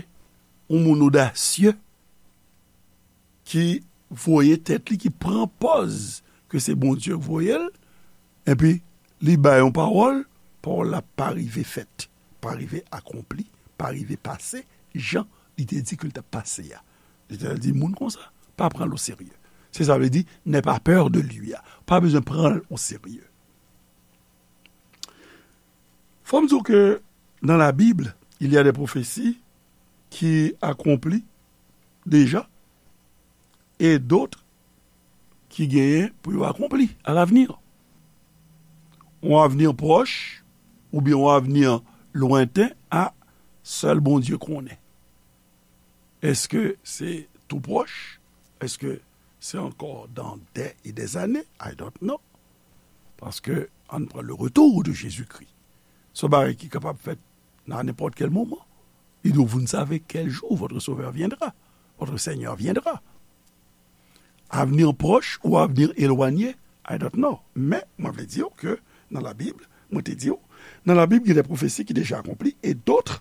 yon moun odasye ki voye tèt li, ki pran pòz ke se Bondye k voye l, epi li bay yon pawòl, pawòl la pa rive fèt, pa rive akonpli, pa rive pase jan li te di ke l t ap pase a. Letènèl di, moun konsa, pa pran l oserye. Se sa vle di, n'aie pas peur de lui a. Pa bezwen pran l oserye. Fò m di w ke dans la Bible, il y a des prophéties qui accomplit déjà et d'autres ki genyen pou yo akonpli à l'avenir. Yon avni pwòch oubyen yon avni lwenten, a, sèl Bondye konnen. Èske se tou pwòch? Èske se ankò dans des et des années? I don't know. Paske, ann pran le retour de Jésus-Christ. Se yon bagay ki kapab fèt nan nenpòt kèl moman. Il dit, vous ne savez quel jour votre Sauveur viendra, votre Seigneur viendra. Avenir proche ou avenir éloigné, I don't know. Men, mwen vle di w ke nan Labib, mwen te di w, nan Labib, gen de pwofesi ki deja akonpli e dòt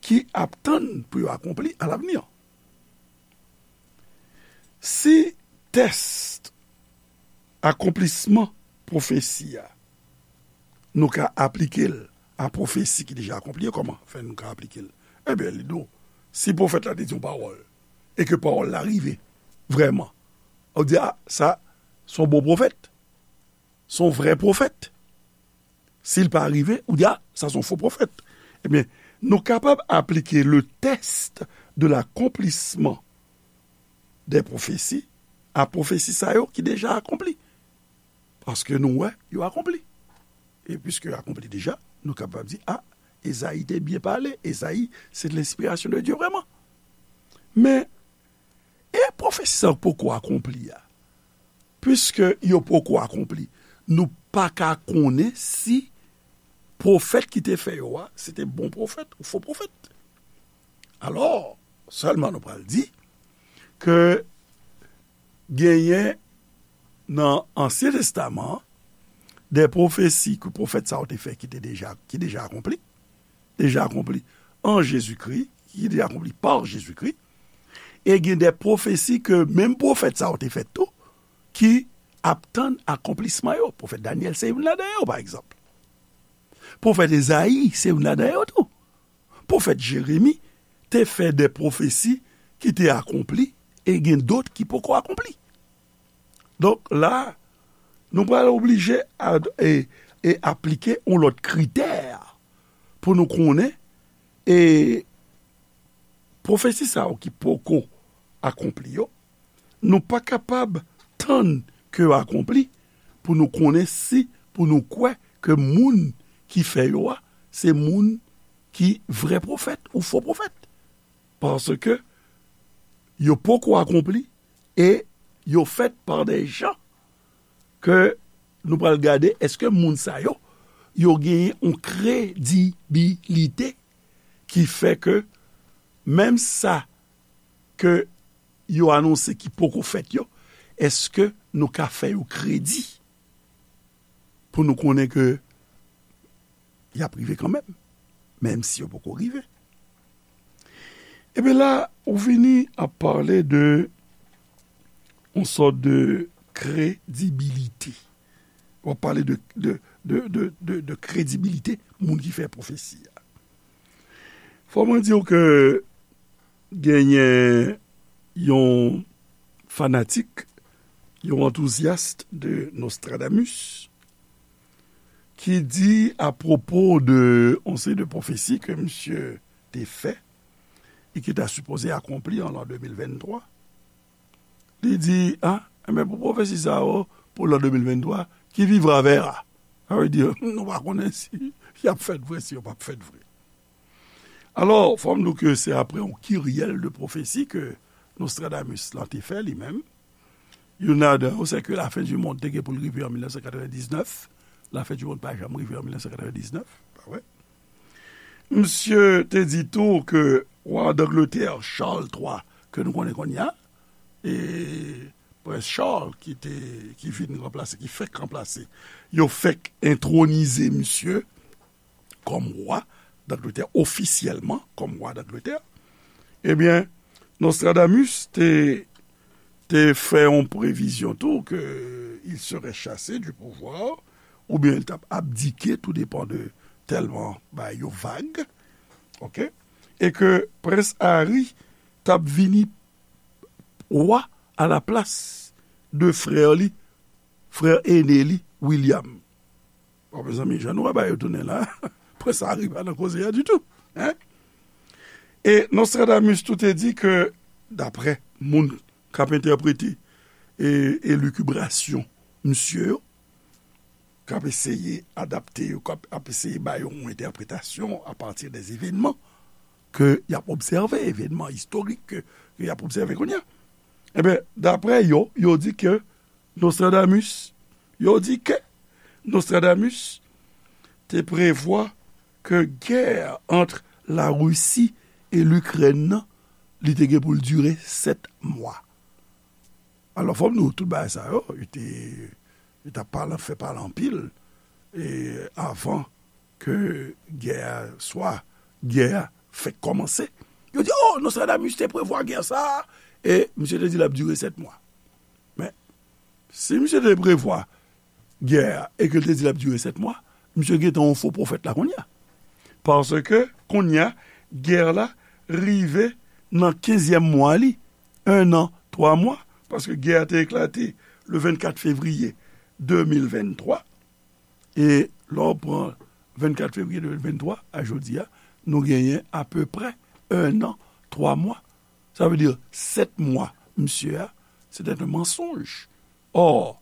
ki ap tann pou yo akonpli à l'avenir. Si tès akonplisman pwofesi a, nou ka aplike l a pwofesi ki deja akonpli, kòman fè nou ka aplike l? Ebyen, li di w, si pwofèt la te di yon pawòl, e ke pawòl la rive vrèman, ou di, a, sa, se yon bon pwofèt, se yon vrè pwofèt. Si l pa rive, ou di, a, sa se yon fo pwofèt. Ebyen, nou kapab aplike le test de l'accomplissement des prophéties a pwofesi sa yo ki deja akonpli. Paske nou wè, yo akonpli. E piske yo akonpli deja, nou kapab di, a, Ezayi te byen pale, Ezayi, se de l'inspiration de Dieu vrèman. Men, e pwofesi sa yo poko akonpli a? Piske yo poko akonpli, nou pa ka konnen si pwofèt ki te fè yo a, se te bon pwofèt ou fo pwofèt. Alò, sèlman nou pral di ke genyen nan Ansyen Testaman an de pwofesi ke pwofèt sa yo te fè ki te deja, ki deja akonpli, deja akonpli an Jezikri, ki deja akonpli pa Jezikri, e gen de pwofesi ke menm pwofèt sa yo te fè tou, ki ap tann akonplisman yo. Pwofèt Danyèl se youn ladan yo, pa egzanp. Pwofèt Ezayi se youn ladan yo tou. Pwofèt Jeremi te fè de pwofesi ki te akonpli e gen dòt ki poko akonpli. Donk, la, nou pral oblije a, e, e aplike yon lòt kritè pou nou konnen, e pwofesi sa yo ki poko akonpli yo, nou pa kapab tann ke yo akonpli pou nou konnen si, pou nou kwè ke moun ki fè yo a, se moun ki vrè pwofèt ou fo pwofèt. Paske yo poko akonpli e yo fèt pa de jan ke nou pral gade èske moun sa yo, yo genyen yon kredibilite ki fè ke menm sa ke yo anonse ki poko fèt yo, èske nou ka fè yo kredi pou nou konnen ke y ap rive kanmenm, menm si yo poko rive? Ebyen la, ou vini ap pale de yon sòt de kredibilite. W ap pale de, de, de, de, de, de kredibilite moun ki fè pwofesi a. Fò mwen di w ke genyen yon fanatik, yon antouzyas de Nostradamus, ki di apwopo de yon seri de pwofesi ke misye te fè e ki ta sipoze akonpli an lan de mil venntwa, li di, a, enben, pou pwofesi sa yo, pou lan de mil venntwa, qui vivra verra. Sa vle di, nou pa konnen si y ap fèt vre, si yo p ap fèt vre. Alò, fò m di w ke se apre yon kiryèl de pwofesi ke Nostradamus lan te fè li menm. Youn ladan yo, se ke lafen di mond te gen pou l rive an mil nèf san katrevendiznèf. Lafen di mond pa janm rive an mil nèf san katrevendiznèf, pa vre? Misye te di tou ke wa Dangletè, Charles twa, ke nou konnen kounye a, e Prens Charles ki te, ki vin ranplase, ki fèk ranplase, yo fèk entwonize misye kòm wa Dangletè, ofisyèlman kòm wa Dangletè, ebyen, Nostradamus te, te fè yon previzyon tou ke il serait chassé du pouvoir, oubyen l t ap abdike, tout depan de tèlman bagay yo vag, oke, e ke Prens Harry t ap vini wa alaplas de frè li, frè ene li, William. Bon, mezanmi, jan nou wè bagay yo tounen la, Prens Harry pa nan koze a ditou, en? E Nostradamus tou te di ke, daprè moun k ap entèprete e, elikibrasyon misye yo, k ap eseye adapte yo, k ap, ap eseye ba yo yon entèpretasyon apati de evènman ke y ap obsève, evènman istorik ke, ke y ap obsève kounye a. Ebyen, daprè yo, yo di ke Nostradamus, yo di ke Nostradamus te prevwa ke gè ant Larisi e Likrèn nan, li te gen pou l dire sèt mwa. Alò, fò m di w, tout bagay sa yo, yo te, yo t ap pale, fè pale anpil, e avan ke gè a, swa gè a fèk kòmanse. Yo di, o, Nostradamus te prevwa gè sa a, e misye te di l ap dire sèt mwa. Men, si misye te prevwa gè a e ke l te di l ap dire sèt mwa, misye gentan yon fo pwofèt la kounye a. Paske kounye a, gè la rive nan kenzyèm mwa li, en an, twa mwa, paske gè a te eklate le vennkat fevriye de mil venntwa, e lè w pran vennkat fevriye de mil venntwa a jodi a, nou genyen apeprè en an, twa mwa. Sa vle di sèt mwa, misye a, c'était un mensonge. Or,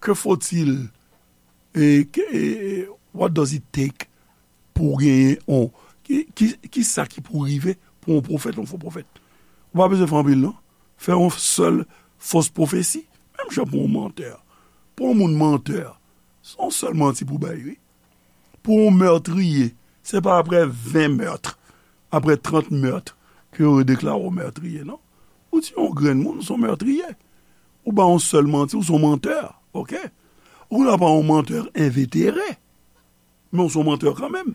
que faut-il, e, ke, e, e, what does it take pou w genyen yon, ki, ki, ki sa ki pou rive pou yon pwofèt, yon fo pwofèt? Ou pa bezwen fè anpil, non. Fè yon sèl fos pwofesi, menm jan pou yon mantè. Pou yon moun mantè, se yon sèl manti pou bay, wi. Pou yon mètriye, se pa aprè ven mèt, aprè trant mèt, ke yo deklare w mètriye, non. Ou tiye yon grenn moun, ou se yon mètriye. Ou bay yon sèl manti, ou se yon mantè, oke? Ou nan pa yon mantè envetere, men ou se yon mantè kanmenm.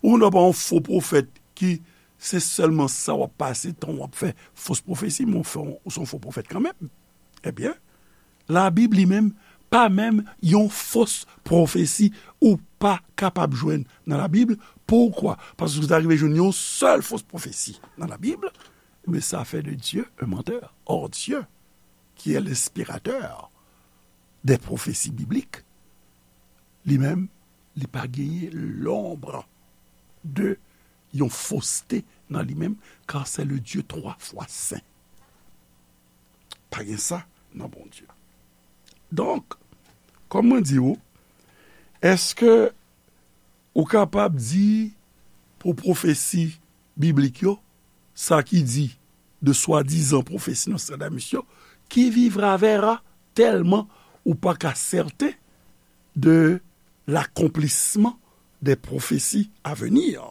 Ou nan pa yon fo pwofèt ki se sèlman sa w ap pase tan w ap fè fos pwofesi, men ou fè yon, ou se yon fo pwofèt kanmenm. Ebyen, Labib li menm pa menm yon fos pwofesi ou pa kapab jwenn nan Labib. Poukwa? Paske si w ta rive jwenn yon sèl fos pwofesi nan Labib, mais ça fait de Dieu un menteur. Or, Dieu, qui est l'inspirateur des prophéties bibliques, li menm, li pa genyen l'ombre de yon foste nan li menm, car c'est le Dieu trois fois saint. Pa gen sa nan Bondye. Donk, kòm mwen di w, èske ou kapab di pou pwofesi biblik yo, sa ki di de swadizan pwofesi Nostradamus yo, qui vivra verra, tèlman ou pa ka sèten de l'accomplissement des prophéties à venir.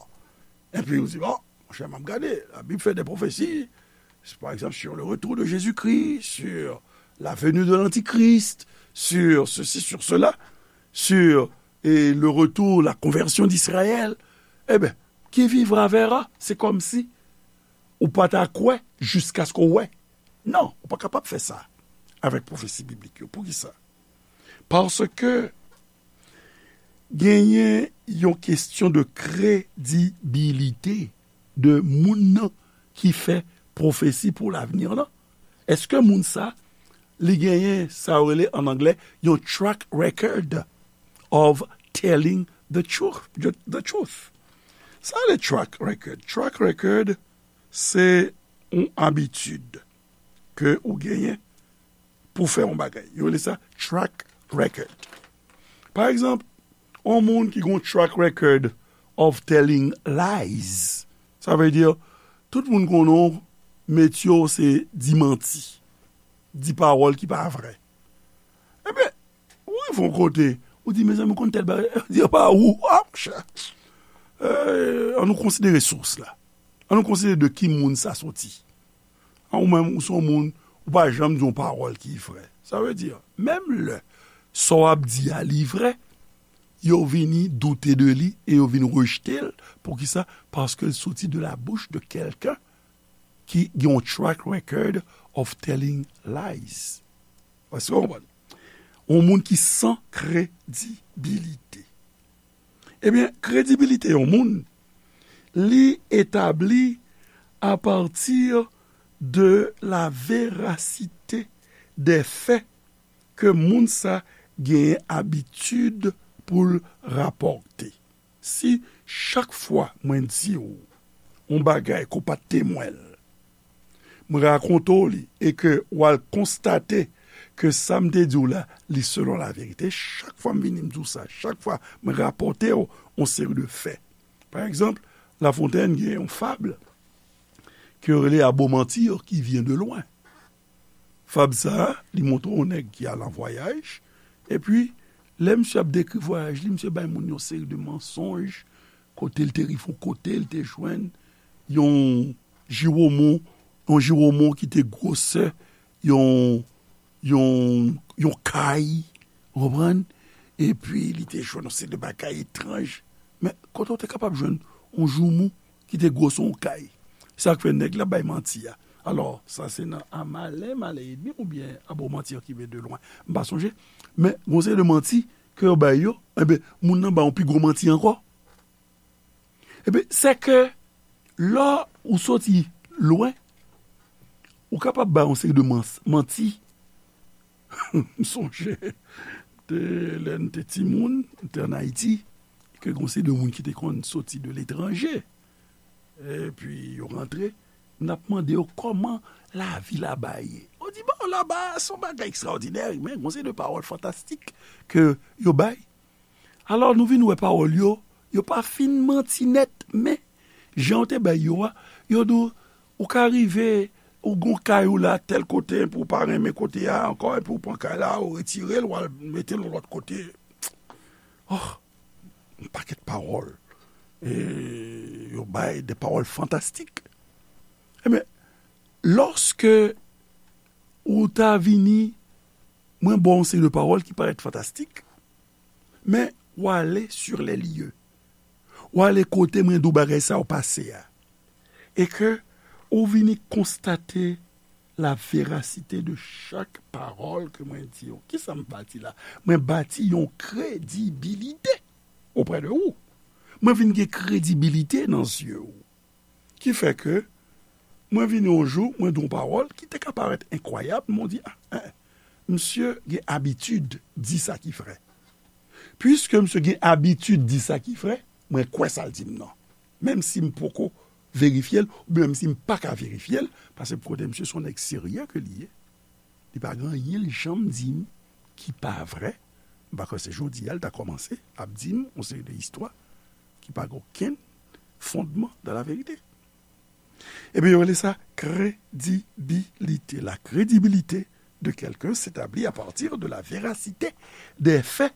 Epi ou di, bon, monchè, m ap gade, la Bible fait des prophéties, par exemple, sur le retour de Jésus-Christ, sur la venue de l'Antichrist, sur ceci, sur cela, sur et le retour, la conversion d'Israël. Eben, qui vivra verra, se kòmsi ou pa ta kwè jiskaske w wè. Non, ou pa kapab fè sa avèk pwofesi biblik yo. Poukisa? Paske genyen yon kesyon de kredibilite de moun nan ki fè pwofesi pou lavni lan. Èske moun sa, li genyen sa yo rele an anglè yon track record of telling the truth? The, the truth. Sa le track record. Track record, se yon abitid ke ou genyen pou fè yon bagay. Yo rele sa track record. Pa egzanp, yon moun ki gon track record of telling lies. Sa vle di, tout moun konnen w, metye w se di manti, di pawòl ki pa vrè. Ebyen, ou rive yon kote, ou di, mezanmi, ou konn tèl bagay, yo di, pa ou, a, monchè. Eh, ann nou konsidere sous la. Ann nou konsidere de ki moun sa soti. An ou menm, ou se yon moun, ou pa janm di yon pawòl ki vrè. Sa vle di, menm lè sa w ap di a li vrè, yo vini doute de li e yo vin rejte l. Poukisa? Paske l soti de la bouche de quelqu'un ki gen yon track record of telling lies. Èske w konprann? Yon moun ki san kredibilite. Ebyen, kredibilite yon moun, li etabli apati de la verasite de fè ke moun sa genyen abitid pou l rapòte. Si chak fwa mwen di w yon bagay ke w pa t temwen l, mwen rakonte w li e ke w al konstate ke sa m te di w la, li selon laverite, chak fwa m vini m di w sa, chak fwa mwen rapòte w yon seri de fè. Pa egzanp, La Fontaine gen yon fab ke yo rele Abo Manti ki vyen de lwen. Fab sa a, li montre yon nèg ki al an vwayaj, epi lè misye ap dekri vwayaj li, misye bay moun yon seri de mansonj, kote l te rive yon kote, l te jwenn yon jiwomon, yon jiwomon ki te gwosè yon, yon, yon kay, ou konprann? Epi li te jwenn yon seri de bagay etranj. Men kote w te kapab jwenn yon joumou ki te gwosè yon kay? Sa k fè nèg la bay manti a. Alò, sa se nan A malin, malin et demi oubyen Abo Manti ki vyen de lwen. M pa sonje. Men, gon seri de manti ke yo bay yo, enben, moun nan ba yon pi gwo manti ankò. Ebyen, se ke lè ou soti lwen, ou kapab bay yon seri de mans-, manti. M sonje, te, lè n te timoun, n te ann Ayiti, ke gon seri de moun ki te konn soti de letranje. Epi yo rantre, n ap mande yo kòman lavi laba ye. Yo di, bon, laba, se yon bagay ekstraòdinè, men gon seri de pawòl fantastik ke yo bay. Alò, nou vin wè pawòl yo, yo pa fin manti nèt, men jan yo te bay yo a, yo di w, ou ka rive, ou gon kay ou la tèl kote, epi ou pa renmen kote a ankò, epi ou pran kay la, ou retire l, ou al mete l yon lòt kote. Oh, yon pakèt pawòl. E yo bay de pawòl fantastik. Ebyen, lòske ou ta vini, mwen ba w yon seri de pawòl ki parèt fantastik, men w ale sur les lieux. W ale kote mwen di w bagay sa yo pase a. E ke ou vini konstate la verasite de chak pawòl ke mwen di w. Kisa m bati la? Mwen bati yon kredibilite oprè de ou. Mwen vin gen kredibilite nan zye w. Ki fè ke mwen vini yon jou, mwen di yon pawòl ki te ka parèt enkwayab, men w di, a, en, misye gen abitid di sa ki vrè. Piske misye gen abitid di sa ki vrè, mwen kwè sa l di m nan. Menm si m poko verifye l, oubyen menm si m pa ka verifye l, paske kote misye se yon nèg serye ke li ye. Li pa gen anyen l janm di m ki pa vrè. M pa kwè se jodi a l ta kòmanse ap di m yon seri de istwa ki pa gen okenn fondman dans la vérité. Ebyen, yo rele sa kredibilite. La crédibilité de quelqu'un s'établit à partir de la véracité des faits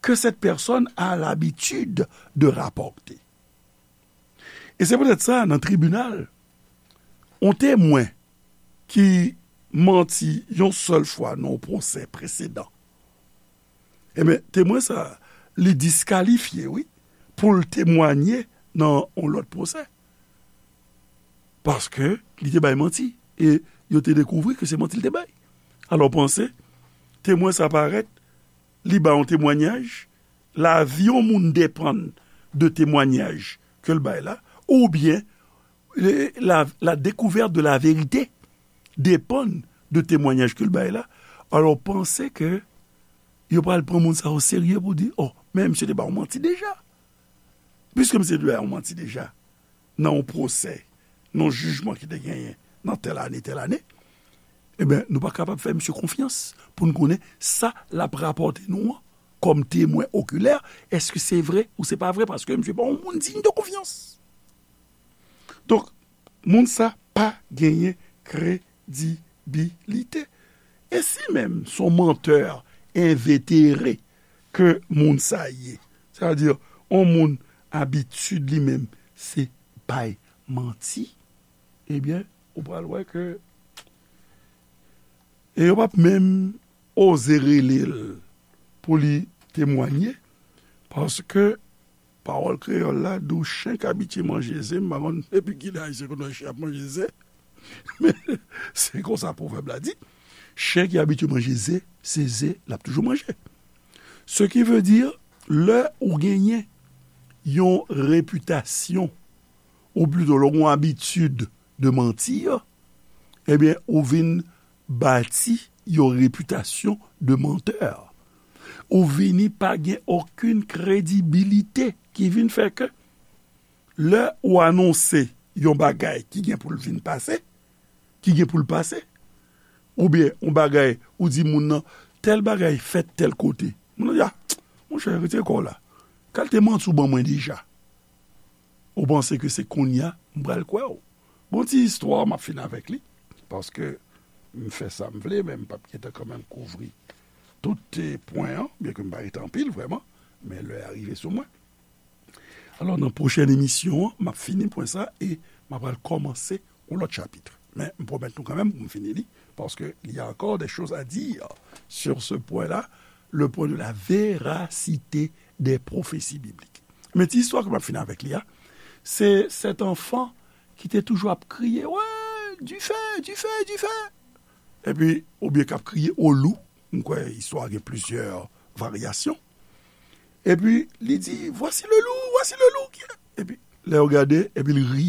que cette personne a l'habitude de rapporter. E se poutèt sa, nan tribinal, yon temwen ki manti yon sèl fwa nan yon pwosè presedan, ebyen, temwen sa, li diskalifye, wi, pou l temwanye nan yon lòt pwosè. Paske li te bay manti. E yo te dekouvri ke se manti l te bay. Alò, panse, temwen sa parèt, li bay yon temwanyaj, lavi yon moun depann de temwanyaj ke l bay la, oubyen, le- la, la découverte de la vérité dépend de temwanyaj ke l bay la. Alò, panse ke yo pral pran moun sa o serye pou di, oh, men misye te bay yon manti deja. Piske misye te bay yon manti deja, nan yon pwosè, nan yon jijman ki te genyen nan tèl ane, tèl ane, ebyen, nou pa kapab fè misye konfyans pou n konnen sa l ap rapòte nou an kòm temwen okilè, èske se vre ou se pa vre, paske misye pa yon moun diy de konfyans. Donk, moun sa pa genyen kredibilite. E si menm se yon mantè envetere ke moun sa ye, sètadi, yon moun abitid li menm, se bay manti, ebyen, ou pral wè ke, e yo p ap menm oze rele l pou li temwanye, paske pawòl kreyòl la di w, chen k abitye manje ze, m pa konn depi kilè Ayisyen konn wè chen ap manje ze, men se konsa pwovèb la di, chen ki abitye manje ze, se ze l ap toujou manje. Ce qui veut dire, lè ou genyen yon repitasyon, ou plito lè ou gen yon abitid de manti, ebyen, ou vin bati yon repitasyon de mantè. Ou vini pa gen okenn kredibilite ki vin fè ke lè ou anonse yon bagay ki gen pou l vin pase, ki gen pou l pase, oubyen yon bagay ou di moun nan, tèl bagay fèt tèl kote. Moun nan di, a, monchè, retire kò w la. Kalite manti w ban mwen deja. Ou panse ke se kounye a m pral kwè w? Bon, ti istwa, m ap fini avèk li, paske m fè sa m vle, men m p ap gentan kanmenm kouvri tout, eh, pwen an, byenke m pa rete anpil vrèman, men lè a rive sou mwen. Alò, nan pwochèn emisyon an, m ap fini pwen sa e m ap pral kòmanse yon lòt chapit. Men m pwomèt nou kanmenm pou m fini li, paske il y a encore des choses à dire sur ce point-là, le point de la véracité des prophéties bibliques. Men ti istwa ke m ap fini avèk li a, se sèt anfan ki te toujou ap kriye, wè, dife, dife, dife. Epi, oubyen k ap kriye, o lou. M kwè istwa a gen plizyè varyasyon. Epi, li di, voici le loup, voici le loup. Epi, lè yo gade, epi l ri.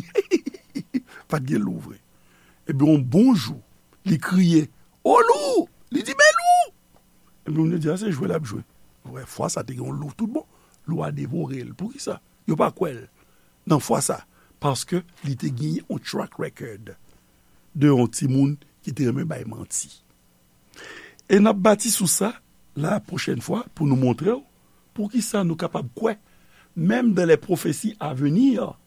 Pa t gen lou vre. Epi, yon bon jou, li kriye, o lou! Li di, men lou! Epi, moun yo di, a, se jwe l ap jwe. Vre, fwa sa te gen yon lou tout bon. Lou a devore l. Poukisa? Yo pa kwè l nan fwa sa. Paske li te genyen yon track record de yon timoun ki te renmen bay manti. E n ap bati sou sa la pwochèn fwa pou nou montre w poukisa nou kapab kwè, menm dans les prophéties à venir,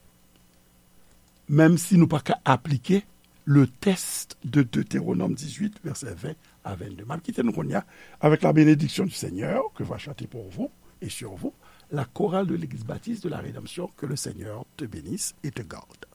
menm si nou pa ka aplike le test de Deutéronome dix-huit, versets vingt à vingt-deux. M ap kite nou kounye a avec la bénédiction du Seigneur que va chanter pour vous et sur vous la chorale de l'Église baptiste de la Rédemption. Que le Seigneur te bénisse et te garde.